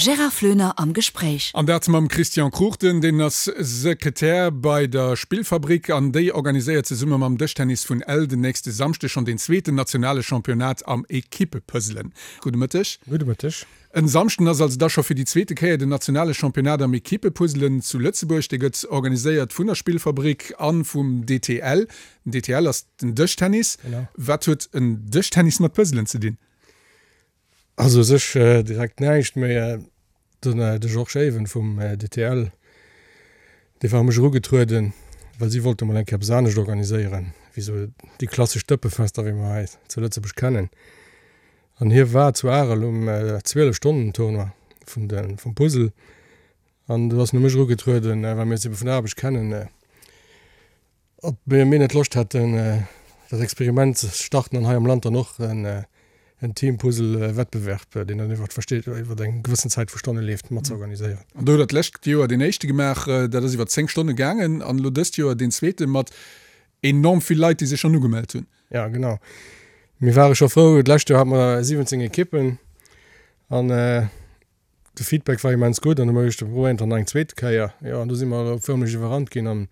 Gérard Floener am Gespréich. An dat mam Christian Cruchten, deen ass Sekretär bei der Spillfabrik an déi organiséiert zesumme mam Dëschtennis vun Ell den nächste Samschdeg schonn deen zweeten nationale Championnat am Equipepuzzelen. Gudde Mëtteg. Gudde Mëtteg. En Samschden ass also da scho fir déi zweete Kéier den nationale Championnat am Equipepuzzelen zu Lëtzebuerg. Dee gëtt organiséiert vun der Spillfabrik a vum DTL. Den DTL ass den Dëschtennis. Wat huet en Dëschtennis mat Puzzelen ze dinn? Also u sech direkt näischt, mee den de Georges Even vum DTL, dee war u mech erugetrueden, well si wollte mol eng Kéier eppes anescht organiséieren, wéi sou déi klassesch Dëppefester, wéi mer hei zu Lëtzebuerg kennen. An hie war zu Arel um 12 Stonnen Tournoi vun de vum Puzzle an do ass en u mech erugetrueden, well mir eis ebe vun der Aarbecht kennen. Ob mir net Loscht hätten, dat Experiment ze starten an hei am Land dann och en Team-Puzzle-Wettbewerb, deen dann iwwer versteet iwwer eng gewëssen Zäit vu Stonne leeft, mat ze organiséieren. An do hutt Der d'lescht Joer deen éischte gemaach, dat ass iwwer 10 Stonne gaangen, an elo dëst Joer deen zweete mat enorm vill Leit, déi sech schonn ugemellt hunn. Ja, genau. Mir ware scho frou, d'lescht Joer hate mer 17 Ekippen an De Feedback war immens gutt an hu mer geduecht, mir probéieren et dann nach eng zweet Kéier. Jo, an do si mer elo fërmlech iwwerrannt ginn an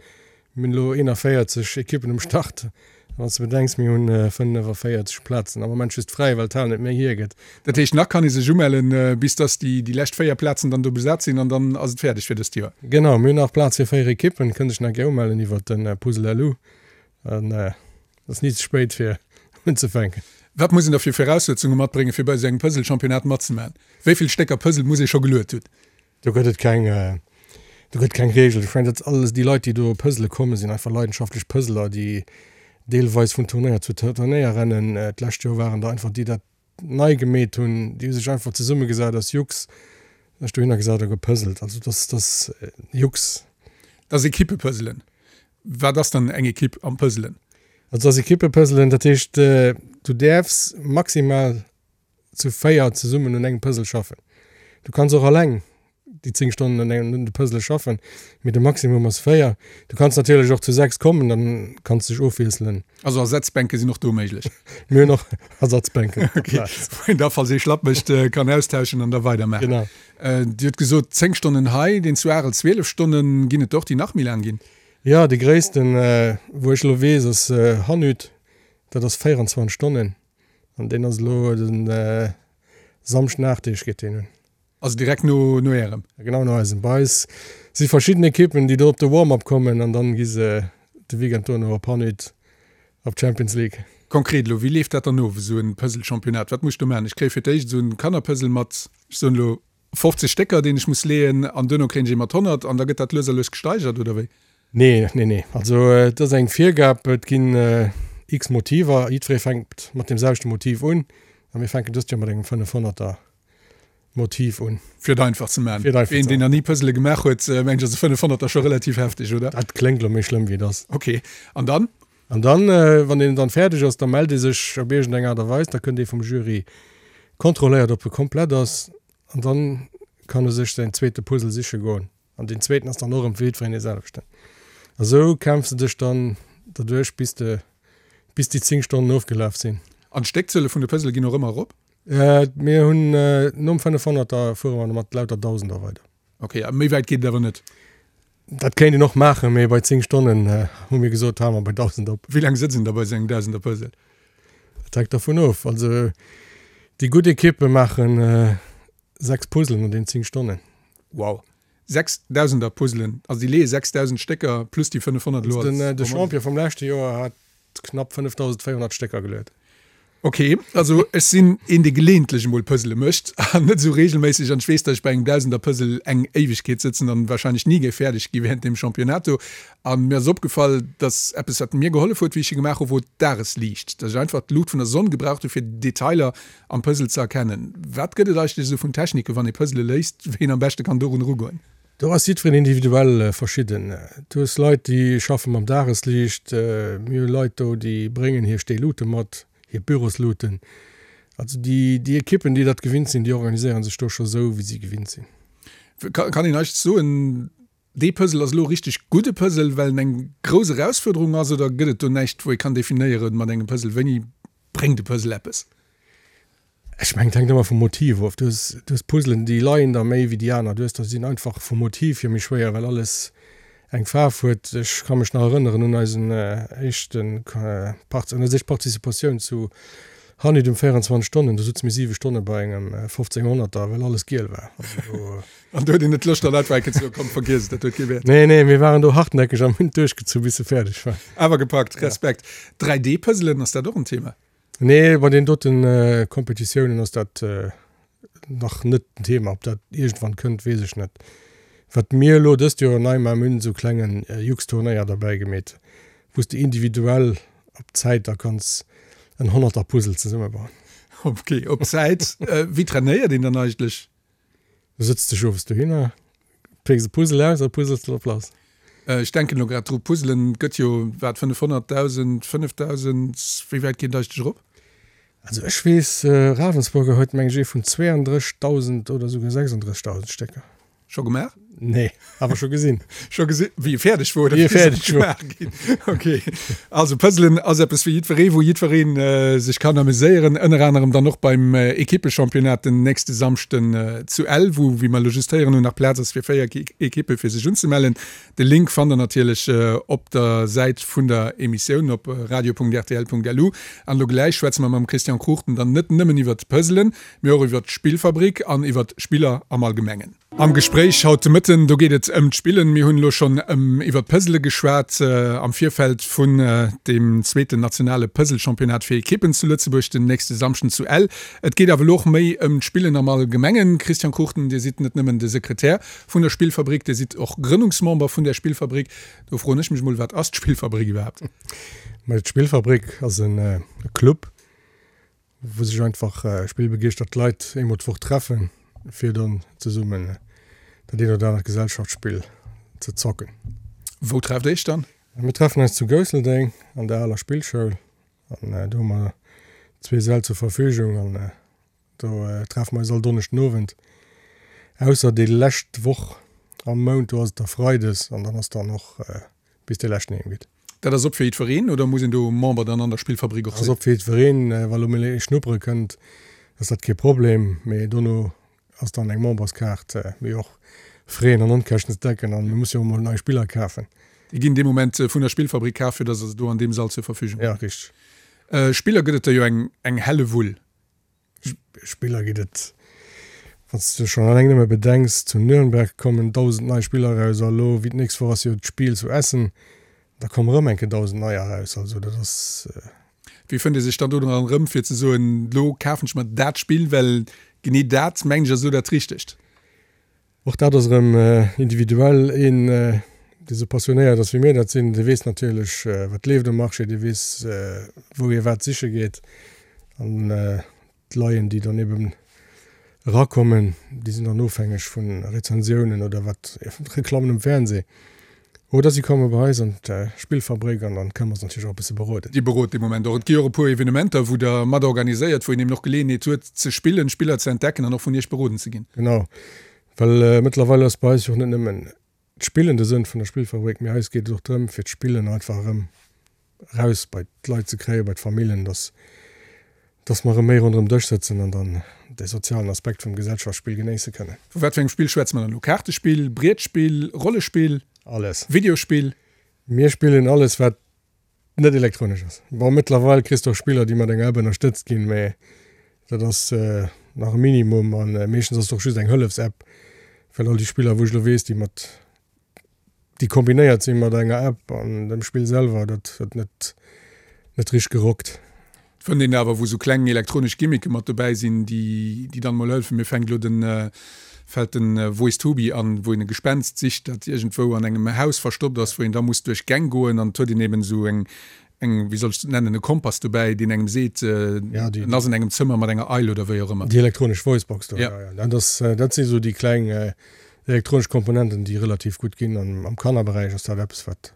mir hunn elo 41 Ekippen um Start. A wann s de bedenks, mir hunn 45 Plazen am Moment just fräi, well d'Hal net méi hiergëtt. Dat heescht, nach kann ee sech umellen, bis dass déi déi lescht 4 Plazen dann do besat sinn an dann ass et fäerdeg fir dëst Joer. Genau, mir hunn nach Plaz fir 4 Ekippen, kënnt sech nach gär umellen iwwert de Puzzle LU. An et ass ni ze spéit fir unzefänken. Wat muss een da fir Viraussetzunge matbréngen, fir bei esou engem Puzzle-Championnat matzemaachen? Wéi vill Stécker Puzzle muss ee scho geluet hunn? Do gëtt et keng, do gëtt keng Reegel. Ech mengen, dat alles déi Leit, déi do puzzle kommen, sinn einfach leidenschaftlech Puzzler, déi deelweis vun Turnéier zu Turnéier rennen. D'lescht Joer waren der einfach déi dat nei gemeet hunn, déi hu sech einfach zesummegesat aus Jux, sech dohinner gesat a gepuzzelt. Also dat ass Jux. Dat ass Equipepuzzelen. Wat ass dann eng Equipe am Puzzelen? Also ass Equipepuzzelen, dat heescht du däerfs maximal zu 4 zesummen un engem Puzzle schaffen. Du kanns och alleng déi 10 Stonnen un engem un de Puzzle schaffen, mee de Maximum ass 4. Du kanns natierlech och zu 6 kommen, dann kanns de dech ofwiesselen. Also Ersatzbänke sinn och do méiglech? Mir hunn och Ersatzbänken op der Plaz. Wou een da falls ee schlapp mécht kann austauschen an da weidermaachen. Genau. Dir hutt gesot 10 Stonnen hei, deen zu Arel 12 Stonnen. Ginn et der och déi nach méi laang ginn? Jo, dee gréissten wou ech elo weess ass Hannut, dat ass 24 Stonnen an deen ass elo de Samschden 8 Deeg geet deen un. Also direkt no no ärem? Genau no eisem. Bei eis si verschidden Ekippen déi do op de Warm-up kommen an dann gi se de Weekend dono op Hannut op d'Champions League. Konkret elo, wéi leeft dat dann of, esou en Puzzle-Championnat? Wat muss ech do maachen? Ech kréie fir d'éischt esou en Kannerpuzzle mat, ech soen elo 50 Stécker, deen ech muss leeën, an duerno kréien ech ee mat 100 an da gëtt dat lues a lues gesteigert, oder wéi? Nee, nee, nee. Also et ass eng Virgab, et ginn x Motiver, jiddweree fänkt mat deem selwechte Motiv un a mir fänken dëst Joer mat engem 500er Motiv un. Fir et einfach ze maachen. Fir et einfach ze maachen. Een, deen nach ni Puzzle gemaach huet, mengen ech, ass e 500er scho relativ hefteg, oder? Dat kléngt elo méi schlëmm wéi et ass. Ok. An dann? An dann, wann een dann fäerdeg ass, da mellt ee sech op iergend eng Aart a Weis, da kënnt ee vum Jury kontrolléiert, ob e komplett ass, an dann kann e sech säin zweete Puzzle siche goen. An deen zweeten ass dann och erëm fir jiddwereen dee selwechten. A sou kämpfs de dech dann derduerch, bis de, bis déi 10 Stonnen ofgelaf sinn. An d'Stéckzuele vun de Puzzle ginn och ëmmer erop? Mir hunn nom 500er fuere mer mat lauter Dausender weider. Ok, a méi wäit geet et awer net? Dat kéint een och maachen, mee bei 10 Stonnen hu mir gesot, hale mer bei 1.000 op. Wéi laang sëtzt een da bei esou engem Dausender-Puzzle? Dat hänkt dervun of. Also déi gutt Ekippe maachen 6 Puzzlen an den 10 Stonnen. Wow! 6 Dausender-Puzzlen, also déi leeë 6.000 Stécker plus déi 500 elo als. De Champion vum leschte Joer hat knapp 5.400 Stécker geluet. Ok, also ech sinn een dee geleeëntlech emol Puzzle mécht an net esou regelméisseg an ech weess, datt ech bei engem Dausender-Puzzle eng Éiwegkeet sëtzen an wahrscheinlech ni géif fäerdeg gi während deem Championnat do. An mir ass opgefall, datt eppes wat mir gehollef huet wéi ech e gemaach hu wor d'Dagesliicht, datt ech einfach d'Luucht vun der Sonn gebraucht hu fir Detailer am Puzzle ze erkennen. Wat gëtt et eigentlech esou vun Technike wann ee Puzzle léist, wéi een am beschte kann dorun erugoen? Do ass jiddwereen individuell verschidden. Du hues Leit, déi schaffe mam Dagesliicht. Mir hu Leit do, déi bréngen hir Steelute mat, hir Bürosluten. Also déi, déi Ekippen, déi dat gewinnt sinn, déi organiséiere sech do scho sou, wéi si gewinnt sinn. Kann een eigentlech soen, dee Puzzle ass elo e richteg gudde Puzzle, well en eng grouss Erausfuerderung ass, oder gëtt et do näischt, wou ee kann definéieren mat engem Puzzle, wéini bréngt e Puzzle eppes? Ech mengen, et hänkt ëmmer vum Motiv of. Du hues, du hues Puzzlen, déi leien der méi wéi déi aner. Du hues der, déi sinn einfach vum Motiv hier méi schwéier, well alles eng Faarf huet. Ech ka mech nach erënneren un eisen éischte Part, un eis éischt Participatioun zu Hanit um 24 Stonnen. Do sutze mir 7 Stonne bei engem 1500er, well alles giel war. Also do. An do huet een net d'Loscht dann einfach eng Kéier ze soen, komm vergiess et, dat huet kee Wäert. Nee, nee, mir waren do hartnäckeg an hunn et duerchgezu bis se fäerdeg war. Awer gepackt, Respekt. 3D-Puzzlen, ass dat och en Thema? Nee, bei den doten Kompetitiounen ass dat nach net den Thema. Ob dat iergendwann kënnt, weess ech net. Wat mir elo dëst Joer nei maachen, mir hunn esou klengen Jux-Turnéier derbäi gemeet, wou s de individuell op Zäit da kanns en Honnerter-Puzzle zesummebauen. Ok, op Zäit. Wéi trainéiert een dann eigentlech? Du sëtz dech owes dohinner, pécks e Puzzle aus a puzzels drop lass. Ech denken elo grad dru, Puzzelen gëtt jo, wat, 500, 1.000, 5.000, wéi wäit geet et eigentlech erop? Also ech weess, Ravensburger huet meng ech ee vun 32.000 oder esouguer 36.000 Stécker. Scho gemaach? Nee, awer scho gesinn. Scho gesinn, wéi e fäerdeg wor oder wéi e fäerdeg wor? Ginn. Ok. Also Puzzlen ass eppes fir jiddweree, wou jiddweree sech kann ameséieren. Ënner anerem dann och beim Ekippechampionnat den nächste Samschden zu Ell, wou, wéi mer elo just héieren hunn, nach Plaz ass fir 4 Ekippe fir sech unzemellen. De Link fannt der natierlech op der Säit vun der Emissioun op radio.rtl.lu. An elo gläich schwätze mer mam Christian Cruchten dann net nëmmen iwwert d'Puzzlen, mee och iwwert d'Spillfabrik an iwwert Spiller am Allgemengen. Am Gespréich haut de Mëtten, do geet et ëm d'Spillen. Mir hunn elo schonn ëm iwwert d'Puzzle geschwat am Virfeld vun deem zweeten nationale Puzzle-Championnat fir Ekippen zu Lëtzebuerg den nächste Samschden zu Ell. Et geet awer elo och méi ëm d'Spillen am Allgemengen. Christian Cruchten, Dir sidd net nëmmen de Sekretär vun der Spillfabrik, Dir sidd och Grënnungsmember vun där Spillfabrik. Do froen ech mech mol, Wat ass d'Spillfabrik iwwerhaapt? Mä d'Spillfabrik ass e Club, wou sech einfach spillbegeeschtert Leit eemol d'Woch treffen, fir dann zesummen dat eent oder anert Gesellschaftsspill ze zocken. Wou trefft Iech dann? Mir treffen eis zu Gousseldeng an der aler Spillschoul an do hu mer zwee Säll zur Verfügung an do treffe mer eis all Donneschden Owend, ausser déi lescht Woch am Mount, do ass et da Freides an dann ass dann och bis dee leschten heem geet. Dat ass op fir jiddwereen oder muss een do Member dann an der Spillfabrik och sinn? Ass op fir jiddwereen. Wa lo mol ee schnuppere kënnt, ass dat kee Problem, mee dono ass dann eng Memberskaart, mee och Fräen an Onkäschten ze decken an mir musse jo och mol nei Spiller kafen. Déi ginn dee Moment vun der Spillfabrik kaf, fir dass se do an deem Sall zur Verfügung hunn? Ja, richteg. Spiller gëtt et der jo eng Hellewull. Spiller geet et, wann s de schonn alleng nëmme bedenks, zu Nürnberg kommen 1.000 nei Spiller eraus a lo wéi d'nächst Woch ass jo d'Spiel zu Essen, da komme rëm eng Kéier 1.000 neier eraus. Also dat ass. Wéi fënnt ee sech dann do dran erëm, fir ze soen, lo kafen ech mer dat Spill, well genee dat, mengen ech, ass elo dat Richtegt? Och dat ass erëm individuell. Een, dee sou passionéiert ass, wéi mir dat sinn, dee weess natierlech, wat leeft um Marché, dee weess, wou hie wat siche geet. An d'Leien, déi dann eben erakommen, déi sinn dann ofhängeg vu Rezensiounen oder wat, Reklammen um Fernseh. Oder si komme bei eis an d'Spillfabrik an dann kënne mer se natierlech och e bësse beroden. Dir berot dee Moment och. Et gi och e puer Evenementer, wou Der mat organiséiert, wou een eben och Geleeënheet huet ze spillen, Spiller ze entdecken an och vun Iech beroden ze ginn. Genau, well mëttlerweil ass bei eis jo och net nëmmen d'Spillen de Sënn vun der Spillfabrik, mee eis geet et och drëm, fir d'Spillen einfach erëm eraus bei d'Leit ze kréien, bei d'Famillen, dass, dass mer erëm méi ronderëm Dësch sëtzen an dann dee sozialen Aspekt vum Gesellschaftsspill genéisse kënnen. Vu wat fir engem Spill schwätze mer dann elo? Kaartespill, Brietspill, Rollespill? Alles. Videospill? Mir spillen alles, wat net elektronesch ass. Bon, mëttlerweil kriss de och Spiller, déi mat enger App ënnerstëtzt ginn, mä dat ass nach e Minimum a meeschtens ass et och just eng Hëllefs-App, well all déi Spiller, wou ech elo weess, déi mat déi kombinéiert sinn mat enger App an dem Spill selwer, dat huet net net richteg gerockt. Et fënnt een awer wou sou kleng elektronesch Gimmicke mat dobäi sinn, déi déi dann mol hëllefen. Mir fänkt elo den fält den Wo ist Tobi an, wou een e Gespenst sicht, dat iergendwou an engem Haus verstoppt ass, wou een da muss duerch Gäng goen an et huet een eben esou eng eng, wéi soll ech et nennen, e Kompass dobäi, deen engem seet, en ass an engem Zëmmer mat enger Eil oder wéi och ëmmer. Déi elektronesch Voicebox do, jo, jo. Dat ass, dat si sou déi kleng elektronesch Komponenten, déi relativ gutt ginn. An am Kannerberäich ass dat eppes, wat,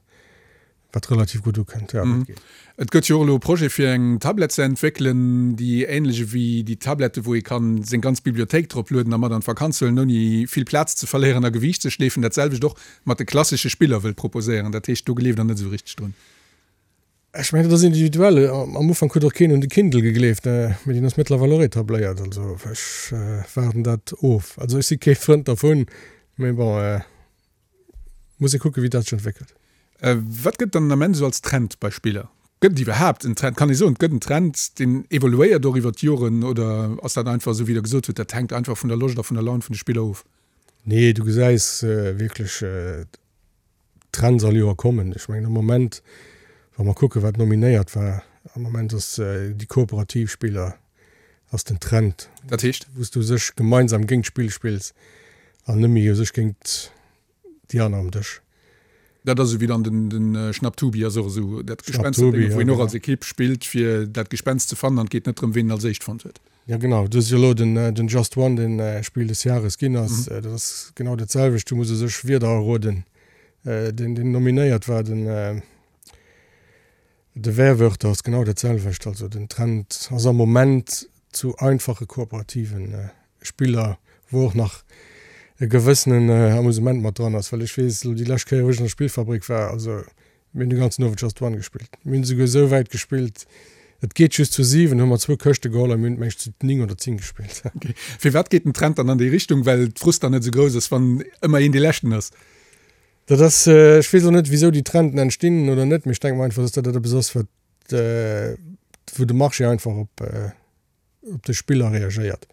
wat relativ gutt ukënnt. Jo, dat geet. Et gëtt jo och elo e Projet, fir eng Tablett ze entwéckelen, déi änlech ewéi déi Tablette, wou ee kann seng ganz Bibliothéik drop lueden a mat an d'Vakanz huelen, ouni vill Plaz ze verléieren a Gewiicht ze schleefen, dat selwecht och mat de klassesche Spiller wëllt proposéieren. Dat heescht, do gleeft Der net esou richteg drun? Ech mengen, dat ass individuell. Am Ufank huet och keen un de Kindle gegleeft, mee deen ass mëttlerweil och etabléiert. Also ech waarden dat of. Also ech si kee Frënd dervun, mee bon, muss ee kucken, wéi dat sech entwéckelt. Wat gëtt dann den Ament esou als Trend bei Spiller? Gëtt et iwwerhaapt en Trend? Kann ee soen, et gëtt en Trend, deen evoluéiert och iwwer d'Joren, oder ass dat einfach esou, wéi Der gesot hutt, dat hänkt einfach vun der Loscht a vun der Laun vun de Spiller of? Nee, du gesäis wierklech Trends all Joer kommen. Ech mengen am Moment, wa mer kucken, wat nominéiert war, am Moment ass déi kooperativ Spiller ass den Trend. Dat heescht? Wou s du u sech gemeinsam géint d'Spill spills an net méi u sech géint déi aner am Dësch. Dat ass esou wéi dann den, den Schnapptubi ass och esou dat Gespensterdénge, wou een och als Ekipp spillt, fir dat Gespenst ze fannen an et geet net drëm, ween en als éischt fonnt huet. Jo genau, du hues jo elo den, den Just One, deen Spill des Jahres ginn ass. Dat ass genau dat selwecht, du muss u sech Wierder erroden. Deen, deen nominéiert war, den, De Werwörter ass genau dat selwecht. Also den Trend ass am Moment zu einfache kooperativen Spiller, wou och nach e gewëssenen Amusement mat dran ass. Well ech weess elo déi lescht Kéier wou ech an der Spillfabrik war, also mir hunn de ganzen Owend Just One gespillt. Mir hunn esouguer esou wäit gespillt, et geet just zu 7, hu mer zwou Këschte geholl a mir hunn et meng ech zu 9 oder 10 gespillt. Okay. Firwat geet den Trend dann an déi Richtung? Well d'Frust dann net esou grouss ass, wann ëmmer een dee Leschten ass? Dat ass, ech weess och net, wisou déi Trenden entstinn oder net, mee ech denke mer einfach, dass dat eppes ass, wat, wou de Marché einfach op, op de Spiller reagéiert,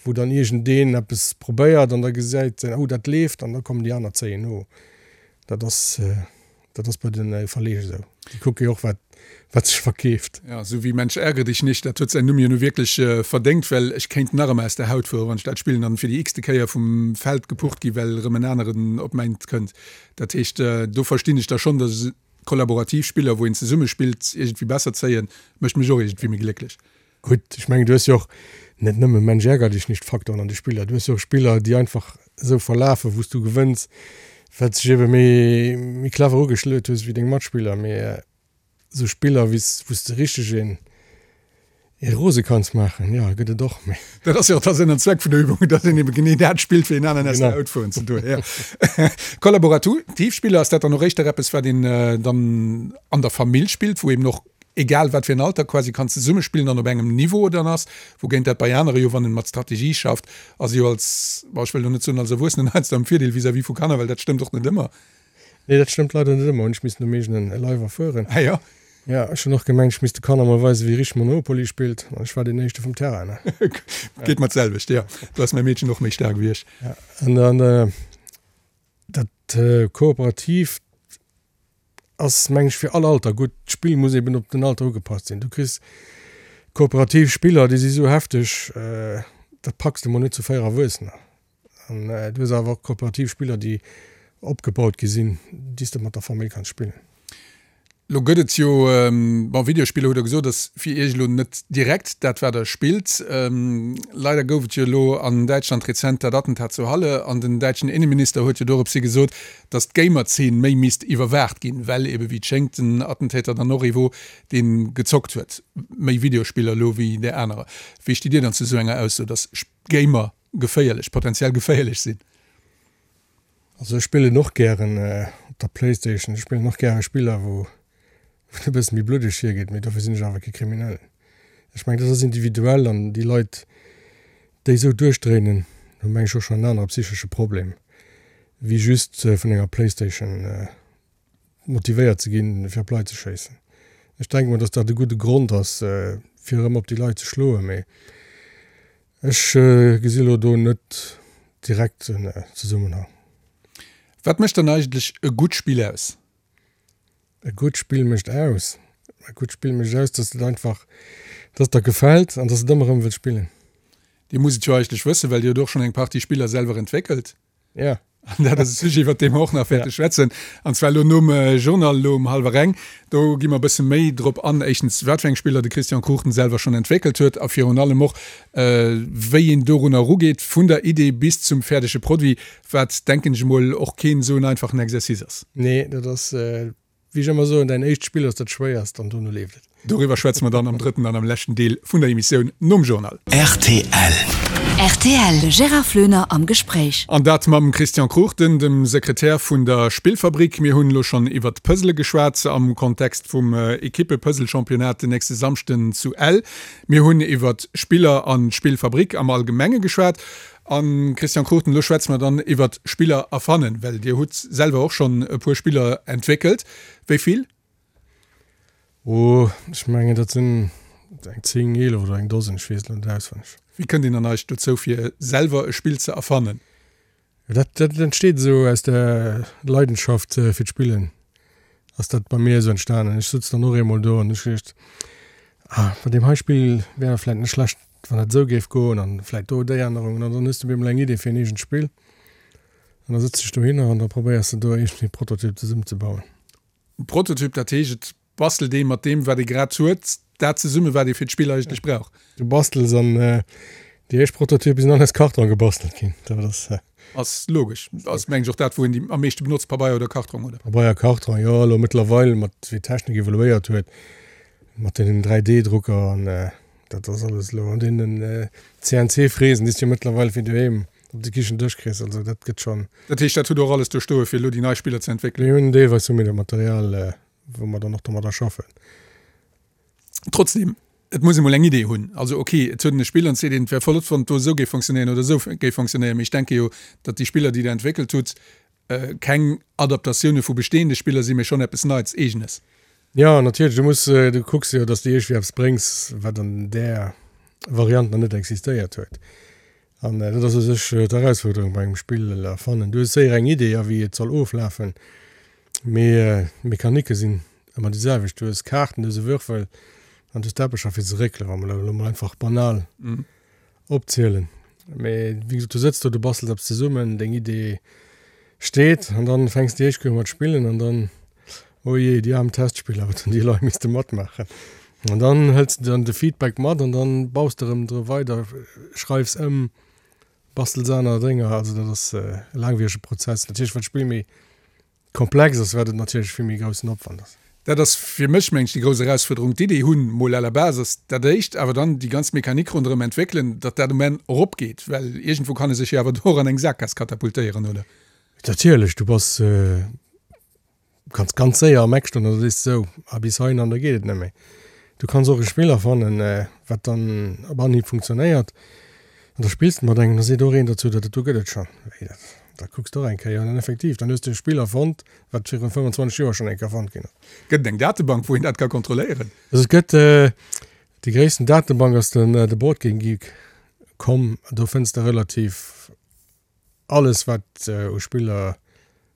wou dann iergendeen eppes probéiert an da gesäit en, oh dat leeft, an da kommen déi aner zéien no. Dat ass, dat ass bei de Verleeg esou. Déi kucke jo och, wat, wat sech verkeeft. Ja, esou wéi Mensch ärgere dich nicht, dat huet säin Numm jo nu wierklech verdéngt, well ech kéint nach ëmmer aus der Haut fueren, wann ech dat spillen an fir déi x-te Kéier vum Feld gepucht gi well erëm en aneren op mäint kënnt. Dat heescht, do verstinn ech da schonn, datt kollaborativ Spiller, wou een zesumme spillt, iergendwéi besser zéien, mécht mech och iergendwéi méi glécklech. Gutt, ech mengen, du hues jo och net nëmme Mensch ärger dich nicht Faktoren an de Spiller, du hues jo och Spiller, déi einfach esou verlafen, wou s du gewënns, well s dech ebe méi, méi clever ugeschluet hues wéi deng Matspiller. Mee esou Spiller, wéi s, wou s de richteg een, ee rose kanns maachen, jo, gëtt et och, mee. Dat ass jo och da Sënn an Zweck vun der Übung, datt een ebe genee dat spillt, fir een aneren aus der Haut fueren ze doen. Jo. Kollaborativ Spiller, ass dat dann och éischter eppes, wat een dann an der Famill spillt, wou eben och egal wat fir en Alter, quasi kann zesummespillen an op engem Niveau dann ass, wougéint dat bei anere jo, wann en mat Strategie schafft, ass jo als, bon, ech wëll elo net soen als Erwuessenen heiansdo am Virdeel vis-à-vis vu Kanner, well dat stëmmt och net ëmmer. Nee, dat stëmmt leider net ëmmer, hunn ech missen um eegenen Leif erfueren. Ah jo? Jo, ech hunn och gemengt, ech misst de Kanner mol weisen, wéi richteg Monopoly spillt, an ech war deen éischte vum Terrain, ne? Geet mer d'selwecht, jo. Do ass mäi Meedchen och méi staark wéi ech. Ja, an dann dat Kooperatiivt ass meng ech fir all Alter gutt. D'Spill muss eben op den Alter ugepasst sinn. Du kriss kooperativ Spiller, déi si sou hefteg, dat packs de mol net zu 4 Erwuessener. An du hues awer och kooperativ Spiller, déi opgebaut gi sinn, déi s de mat der Famill kanns spillen. Lo gëtt et jo, bon, Videospiller hutt Der gesot, ass fir Iech elo net direkt dat wat Der spillt. Leider gouf et jo elo an Däitschland rezent dat Attentat zu Halle an den däitschen Inneminister huet jo doropshi gesot, datt d'Gamer-Zeen méi misst iwwerwaacht ginn, well ebe wéi et schéngt den Attentäter dann och ee wor, dee gezockt huet, méi Videospiller elo wéi där anerer. Wéi stitt Dir dann zu esou enger Ausso, datt Gamer geféierlech, potenziell geféierlech sinn? Also ech spillen och gären op der Playstation, ech spillen och gäre Spiller wou et e bësse méi bluddeg hiergeet, mee dofir sinn ech awer kee Kriminellen. Ech mengen dat ass individuell an déi Leit déi esou duerchdréinen hu meng ech och schonn en anere psychesche Problem wéi just vun enger Playstation motivéiert ze ginn fir op Leit ze schéissen. Ech denke mol datt dat e gudde Grond ass fir erëm op déi Leit ze schloen, mee Ech gesi lo do net direkt en Zesummenhang. Wat mécht dann eigentlech e gutt Spill aus? E gutt Spill mécht aus? E gutt Spill mécht aus, dass et einfach, dass et der gefält an dass de et ëmmer erëm wëlls spillen. Dir musst et jo eigentlech wëssen, well Dir hutt och schonn eng Partie Spiller selwer entwéckelt. Ja. An dat ass e Sujet, iwwert dee mer och nach wäerte schwätzen. An zwar elo nom Journal, elo um hallwer eng. Do gi mer e bësse méi drop an, éischtens, wat fir eng Spiller de Christian Cruchten selwer schonn entwéckelt huet a virun allem och, wéi een dorunner erugeet, vun der Idee bis zum fäerdege Produit, wat, denken ech emol, och keen esou en einfachen Exercice ass. Nee, dat ass Wéi ech ëmmer soen, däin éischt Spill ass dat schwéierst an dono leeft et. Doriwwer schwätze mer dann am drëtten an am leschten Deel vun der Emissioun nom Journal. Rtl. Rtl, De Gérard Floener am Gespréich. An dat mam Christian Cruchten, dem Sekretär vun der Spillfabrik. Mir hunn elo schonn iwwert d'Puzzle geschwat am Kontext vum Ekippe-Puzzle-Championnat den nächste Samschden zu Ell. Mir hunn iwwert Spiller an d'Spillfabrik am Allgemenge geschwat. A Christian Cruchten, elo schwätze mer dann iwwert Spiller erfannen, well Dir hutt selwer och schonn e puer Spiller entwéckelt. Wéi vill? Oh, ech mengen dat sinn eng 10, 11 oder eng Dosen, ech weess et elo net auswenneg. Wéi kënnt een dann eigentlech dozou fir selwer e Spill ze erfannen? Dat dat entsteet esou aus der Leidenschaft fir d'Spillen ass dat bei mir esou entstanen. Ech sutz dann och eemol do an ech geduecht, ah bei deem hei Spill wär vläit net schlecht wann dat esou géif goen an vläit do déi Ännerungen an dann hues de op eemol eng Idee fir en eegent Spill an da sëtz dech dohinner an da probéiers de do iergendwéi e Prototyp zesummenzebauen. Prototyp, dat heescht et bastelt ee mat deem wat ee grad huet, dat zesummen wat ee fir d'Spill eigentlech brauch. Du bastels an déi éischt Prototype sinn all aus Karton gebastelt ginn. Dat ass. Ass logesch. Ass mengen ech och dat wou een déi am meeschte benotzt, Pabeier oder Kartrong, oder? Pabeier, Kartrong, jo. Elo mëttlerweil mat wéi d'Technik evoluéiert huet, mat deenen 3D-Drucker an dat ass alles elo an deenen CNC-Fräsen déi s du jo mëttlerweil fir doheem op de Kichendësch kriss, also dat gëtt schonn. Dat heescht, dat hutt Der och alles do stoe fir elo déi nei Spiller ze entwéckelen? Mir hunn deelweis hu mir dat Material, wou mer dann och domadder schaffen. Trotzdem, et muss ee mol eng Idee hunn. Also ok, et huet een e Spill an et seet een, et wär flott, wann et do esou géif fonctionnéieren oder esou géif fonctionnéieren. Mee ech denke jo, datt déi Spiller, déi Der entwéckelt hutt, keng Adaptatioune vu bestehende Spiller sinn, mee schonn eppes Neits, Eegenes. Jo, natierlech, du muss, du kucks jo, datt s de iergendwéi eppes bréngs, wat an där Variant nach net existéiert huet. An dat ass u sech d'Erausfuerderung bei engem Spill erfannen. Du hues séier eng Idee, a wéi et soll oflafen, mee d'Mechanike sinn ëmmer déi selwecht. Du hues Kaarten, du hues e Würfel an du hues d'Teppecher fir ze réckelen, wa mer elo mol einfach banal opzielen. Mee wéi gesot, du sëtz do, du bastels eppes zesummen, deng Idee steet an dann fänks de éischt Kéier u mat spillen an dann, oh jee, déi aarm Testspiller, wat hunn déi Leit misste matmaachen. An dann hëls de dann de Feedback mat an dann baus de erëm dru weider, schreifs ëm, bastels aner Dénger. Also dat ass e laangwierege Prozess. Natierlech wat d'Spill méi komplex ass, wat et natierlech vill méi groussen Opwand ass. Dat ass fir mech, meng ech, déi grouss Erausfuerderung. D'Idee hunn, mol à la base ass dat éischt, awer dann déi ganz Mechanik ronderëm entwéckelen, datt dat um Enn eropgeet, well iergendwou kann e sech jo awer do och an eng Sakgaass katapultéieren, oder? Natierlech, du bass Du kanns ganz séier am Eck stoen an da sees de sou, ah bis heihin an da geet et net méi. Du kanns och e Spill erfannen, wat dann op Anhieb funktionéiert an da spills de mat engem, da seet och een dozou, dat do gëtt et schonn. Wéi dat? Da kucks de och eng Kéier an dann effektiv, dann hues de e Spill erfonnt, wat virun 25 Joer schonn eng Kéier erfonnt ginn ass. Gëtt et eng Datebank, wou een dat ka kontrolléieren? Also et gëtt, déi gréissten Datebank ass den de Boardgamegeek. Com, do fënns de relativ Alles wat u Spiller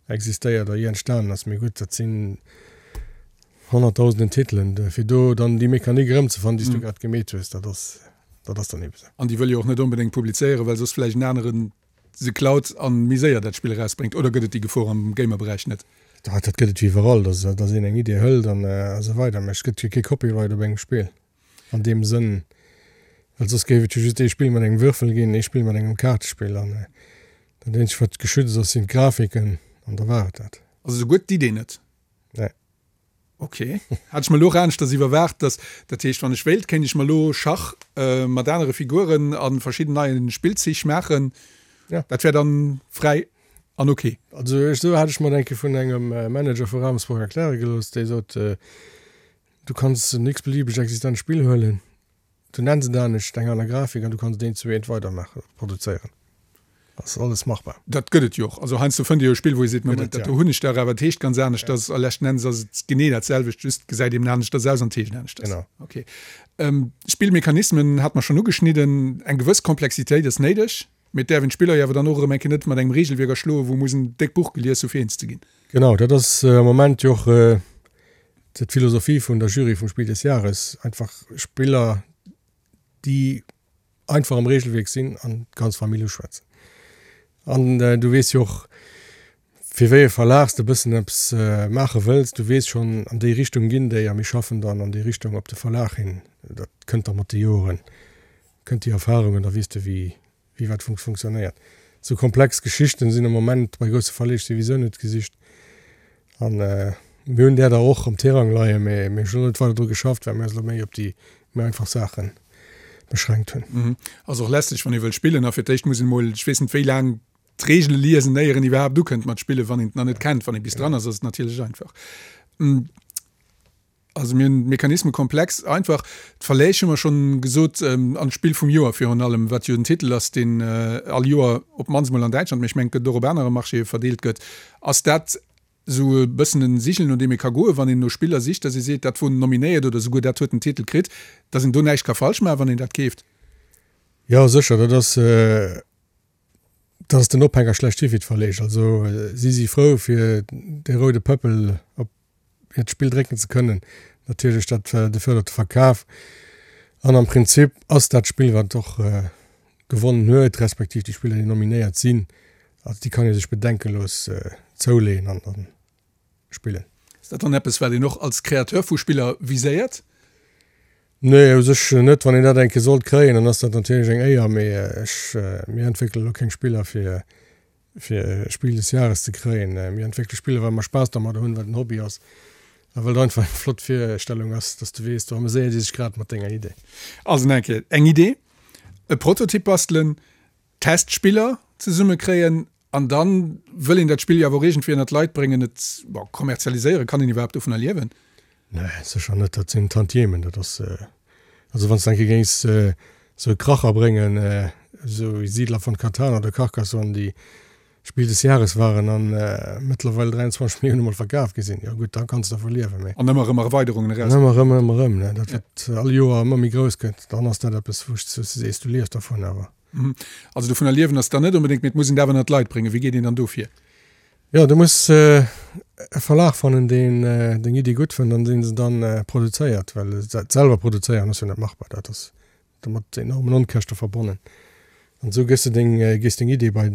existéiert a jee entstanen ass, mee gutt, dat sinn honnertdausenden Titelen, fir do dann déi Mechanik erëmzefannen, déi s du grad gemeet hues, dat ass, dat ass dann ebe sou. An déi wëll jo och net onbedéngt publizéieren, well soss vläicht en aneren se klaut an méi séier dat Spill erausbréngt. Oder gëtt et déi Gefor am Gamer-Beräich net? Dat gëtt et wéi iwwerall, dass een eng Idee hëlt an esou weider, mä et gëtt jo kee Copyright op engem Spill. An deem Sënn, well soss géif et jo just ee Spill mat engem Würfel ginn, ee Spill mat engem Kaartespill an dat eenzegt wat geschützt ass sinn d'Grafiken an da war et dat. Also souguer d'Idee net? Nee. Ok. Hat ech mer elo och aneschters iwwerwaart, dass, dat heescht wann ech wéilt, kéint ech mer elo Schach mat anere Figuren a verschidden neie Spillzich maachen. Ja. Dat wär dann fräi an ok. Also ech, esou hat ech mer et eng Kéier vun engem Manager vu Ravensburg erkläre gelooss, dee sot, Du kanns en x-beliebeg existent Spill huelen, du nenns et anescht, eng aner Grafik an du kanns et eent zu eent weidermaachen, produzéieren. Ass alles machbar. Dat gëtt et jo och. Also heiansdo fënnt ee jo e Spill, wou ee seet, Moment, dat do hunn ech dach, awer et heescht ganz aneschters a leschten Endes ass et genee dat selwecht, just gesäit eben aneschters aus an et heescht aneschters. Genau. Okay. Spillmechanismen hate mer schonn ugeschnidden. Eng gewëss Komplexitéit ass néideg, mee et däerf een d'Spiller jo awer dann och erëm eng Kéier net mat engem Regelwierk erschloen, wou muss en déckt Buch gelies hu fir eens ze ginn. Genau, dat ass am Moment jo och d'Philosophie vun der Jury vum Spiel des Jahres, einfach Spiller, déi einfach am Regelwierk sinn an d'ganz Famill uschwätzen. An du weess jo och, fir wéi e Verlag s de e bëssen eppes maache wëlls. Du weess schonn, an déi Richtung ginn déi a mir schaffen dann an déi Richtung op de Verlag hin. Dat kënnt da mat de Joren, kënnt déi Erfahrung an da weess de, wéi wéi wat funktionéiert. Sou komplex Geschichten sinn am Moment bei grousse Verleeg souwisou net gesicht. An mir hunn där der och am Tirang leien, mä mir hunn net weider dru geschafft, well mir eis elo méi op déi méi einfach Saache. beschränkt hunn. Ass och lästeg, wann ee wëll spillen a fir d'éischt muss een emol, ech weess net wéi laang, d'Reegele liesen, éier een iwwerhaapt ukënnt mat spillen, wann een et nach net kennt. Wann ee bis dran ass, ass et natierlech einfach. Also mir hunn Mechanisme komplex, einfach. D'Verläg hu mer schonn gesot, an d'Spill vum Joer virun allem, wat jo en Titel ass, deen all Joer op d'mannst mol an Däitschland, mee ech mengen et gëtt och op anere Marchéë verdeelt gëtt. Ass dat esou e bëssen en Sigel, no deem ee ka goen, wann een no Spiller sicht, dass ee seet, dat wor nominéiert oder esouguer dat huet den Titel kritt, dass een do näischt ka falsch maachen, wann een dat keeft? Jo, sécher, dat ass. Dat ass den Ophänger schlechthi fir d'Verleeg. Also si si frou fir dee roude Pëppel op hiert Spill drécken ze kënnen. Natierlech dat de fërdert de Verkaf. An am Prinzip ass dat Spill wat och gewonnen huet, respektiv déi Spiller déi nominéiert sinn, also déi kann ee sech bedenkelos zouleeën an dann spillen. Ass dat dann eppes, wat een och als Créateur vu Spiller viséiert? Nee, u sech net. Wann een dat eng Kéier sollt kréien, dann ass dat natierlech eng Éier, mee ech, mir entwéckele lo keng Spiller fir, fir Spiel des Jahres ze kréien. Mir entwéckele Spiller, well mer Spaass dermadder hunn, well et en Hobby ass a well et einfach eng flott Virstellung ass, dass du weess, do ameséiert ee sech grad mat denger Idee. Also nach eng Kéier, eng Idee, e Prototyp bastelen, Testspiller zesummekréien An dann wëll een dat Spill jo awer och iergendwéi ënnert d'Leit bréngen, et, bon, kommerzialiséieren. Kann een iwwerhaapt dovunner liewen? Nee, sécher net. Dat sinn Tantiemen. Dat ass, also wann s de eng Kéier géings esou e Kracher bréngen, esou wéi Siedler von Catan oder Carcassonne, déi Spiel des Jahres waren an mëttlerweil 23 Millioune mol verkaf gi sinn, jo gutt, da kanns de dervu liewen, mee. An ëmmer erëm Erweiderungen eraus. An ëmmer erëm, ëmmer erëm, ne, dat wat all Joer ëmmer méi grouss gëtt, dann ass dat eppes, wou s du sees, du liefs dervun, awer. Also dovunner liewen ass dann net onbedéngt, mee et muss een et awer ënnert d'Leit bréngen. Wéi geet een dann do vir? Jo, du muss e Verlag fannen, deen deng Iddi gutt fënnt an deen se dann produzéiert, well et selwer produzéieren ass jo net machbar. Dat ass mat enormen Onkäschte verbonnen. An esou gëss de deng, gees deng Iddi bei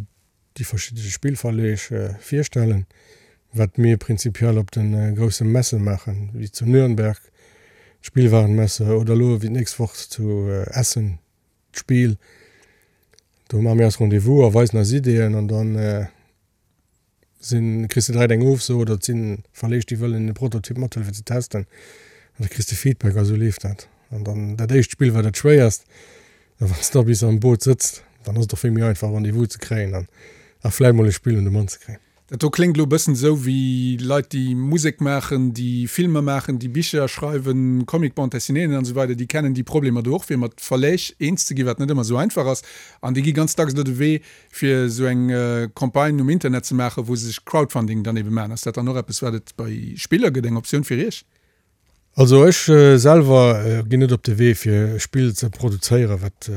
déi verschidde Spillverleeg virstellen, wat mir prinzipiell op de grousse Messe maachen, wéi zu Nürnberg d'Spielwarenmesse oder elo wéi d'nächst Woch zu Essen D'Spill, do maache mir eis Rendez-vous a weisen eis Ideeën an dann sinn, kriss de direkt eng Ofso oder et si Verleeg, déi wëllen e Prototyp mathuelen fir ze testen an da kriss de Feedback a sou leeft dat. An dann dat éischt Spill war dat schwéierst a wann s de da bis am Boot sëtzt, dann ass et och vill méi einfach Rendez-vous ze kréien an a vläicht mol e Spill un de Mann ze kréien. Dat do kléngt elo e bëssen esou wéi Leit, déi Musek maachen, déi Filmer maachen, déi Bicher schreiwen, Comic-Bande dessinéeën an esou weider, déi kennen déi Problemer do och, fir mat Verläg eens ze ginn, wat net ëmmer esou einfach ass. An déi gi ganz dacks elo de Wee, fir esou eng Campagne um Internet ze maachen, wou se sech Crowdfunding dann ebe maachen. Ass dat dann och eppes, wat et bei Spiller gëtt, eng Optioun fir Iech? Also ech selwer ginn net op de Wee, fir e Spill ze produzéieren, wat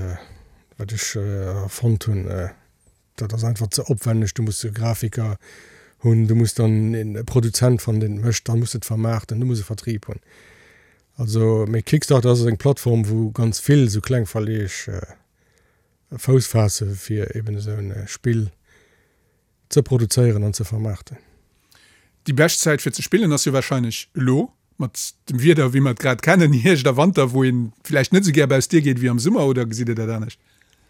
wat ech erfonnt hunn. Dat ass einfach ze opwenneg, du muss e Grafiker hunn, du muss dann e Produzent fannen, deen et mécht, da muss et vermaarten, du muss e Vertrieb hunn. Also, mee Kickstarter ass eng Plattform, wou ganz vill esou kleng Verleeg Fouss faasse fir eben esou e Spill ze produzéieren an ze vermaarten. Déi bescht Zäit fir ze spillen ass jo wahrscheinlech elo, mat dem Wieder wéi mer et grad kennen, Hierscht a Wanter, wou een villäicht net esou gär baus d'Dier geet wéi am Summer, oder gesitt Dir dat anescht?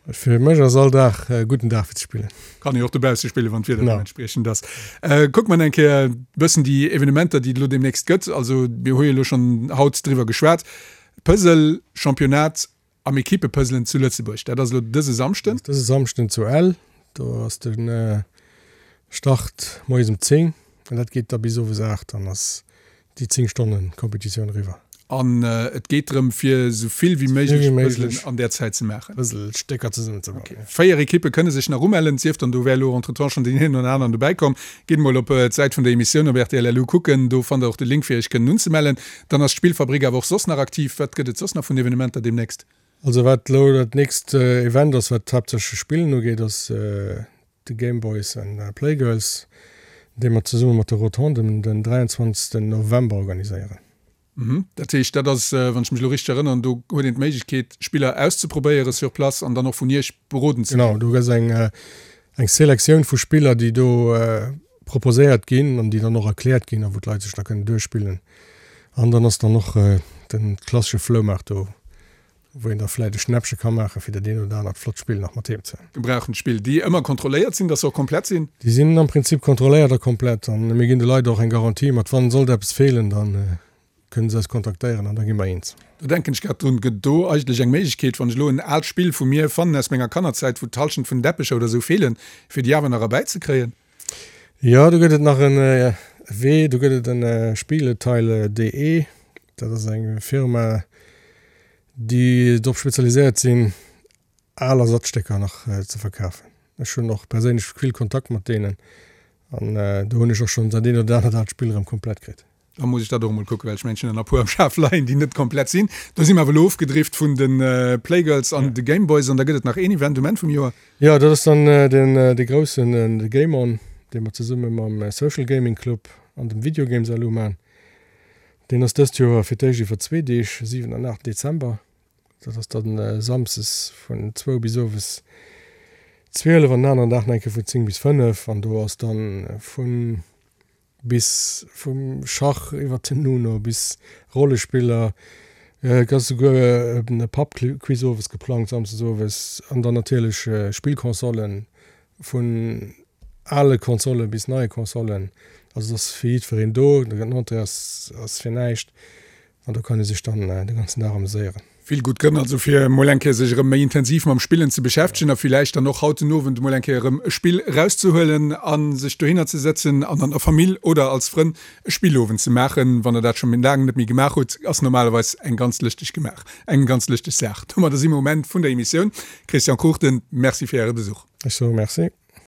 Fir mech ass all Dag e gudden Dag fir ze spillen. Kann ee och dobausse spillen, wann d'Wieder deementspriechend ass. Kucke mer eng Kéier e bëssen déi Evenementer, déi et elo deemnächst gëtt. Also mir hu jo elo schonn haut driwwer geschwat, Puzzle Championnat Am Equipepuzzlen zu Lëtzebuerg, dat ass elo dëse Samschden. Dëse Samschden zu Ell, do ass de Start moies um 10 an dat geet da bis owes 8, dann ass déi 10 Stonnen Competitioun eriwwer. An et geet drëm fir esou vill wéi méiglech Puzzlen an där Zäit ze maachen. Puzzlestécker zesummen ze bauen. Ok, 4 Equippe kënne sech nach umellen, sief dann do wär elo entretemps schonn deen een oder aneren dobäi komm. Gitt mol op d'Säit vun der Emissioun op rtl.lu kucken, do fannt der och de Link fir iech kënnen unzemellen. Dann ass d'Spillfabrik awer och soss nach aktiv. Wat gëtt et soss nach vun Evenementer deemnächst? Also wat elo dat nächst Event ass, wat haaptsächlech Spillen ugeet, ass de Game Boys and Playgirls, dee mer zesumme mat de Rotonden den 23 November organiséieren. Dat heescht, dat ass, wann ech mech elo richteg erënneren, do huet een d'Méiglechkeet, Spiller auszeprobéiere sur place an dann och vun Iech beroden ze ginn. Genau, do gëtt eng eng Selektioun vu Spiller, déi do proposéiert ginn an déi dann och erkläert ginn a wou d'Leit sech da kënnen duerchspillen. An dann ass dann och de klassesche Floumaart do, wou een da vläit e Schnäppche ka maachen, fir dat eent oder anert flott Spill nach mat heem ze. Gebrauchent Spill, déi ëmmer kontrolléiert sinn, dass se och komplett sinn? Déi sinn am Prinzip kontrolléiert a komplett. An mir ginn de Leit och eng Garantie mat, wann sollt eppes feelen, da kënnen se eis kontaktéieren an da gi mer eens. Do denken ech grad drun, gëtt do eigentlech eng Méiglechkeet, wann ech elo en aalt Spill vu mir fannen aus menger Kannerzäit, wou d'Halschent vun den Deppecher oder esou feelen, fir déi awer nach erbäizekréien? Jo, do gëtt et nach en Wee, do gëtt et en Spieleteile.de, dat ass eng Firma, déi drop spezialiséiert sinn, al Ersatzstécker nach ze verkafen. Ech hunn och perséinlech vill Kontakt mat deenen an do hunn ech och schonn dat eent oder anert aalt Spill erëm komplett kritt. Da muss ech dat och emol kucken, well ech mengen, ech hunn der nach e puer am Schaf leien, déi net komplett sinn. Do si mer awer elo ofgedrift vun de Playgirls an de Gameboys an da gëtt et nach een Event um Enn vum Joer. Jo, dat ass dann deen dee groussen, de Game On, dee mer zesumme mam Social Gaming Club an dem Video Games LU man. Deen ass dëst Joer fir d'éischt iwwer zwee Deeg, 7 an 8 Dezember. Dat ass dann samsdes vun zwou bis owes 12 an den aneren Dag nach eng Kéier vun 10 bis 5 an do ass dann vun Bis vum Schach iwwer den Uno bis Rollespiller. Et ass souguer e Pub-Quiz owes geplangt, samsdes owes. An dann natierlech Spillconsolen, vun ale Konsolle bis neie Konsolen. Also et ass fir jiddwereen do. Den Entrée ass fir näischt. An do kann ee sech dann de ganzen Dag ameséieren. Vill gutt Grënn also fir emol eng Kéier sech erëm méi intensiv mam Spillen ze beschäftegen a villäicht dann och haut den Owend emol eng Kéier erëm e Spill erauszehuelen a sech dohinner ze sëtzen an an der Famill oder als Frënn e Spillowend ze maachen. Wann der dat scho méi laang net méi gemaach hutt, ass normalerweis eng ganz lëschteg gemaach, eng ganz lëschteg Saach. Domadder si mer um Enn vun der Emissioun. Christian Cruchten, Merci fir Äre Besuch. Ech soe Merci.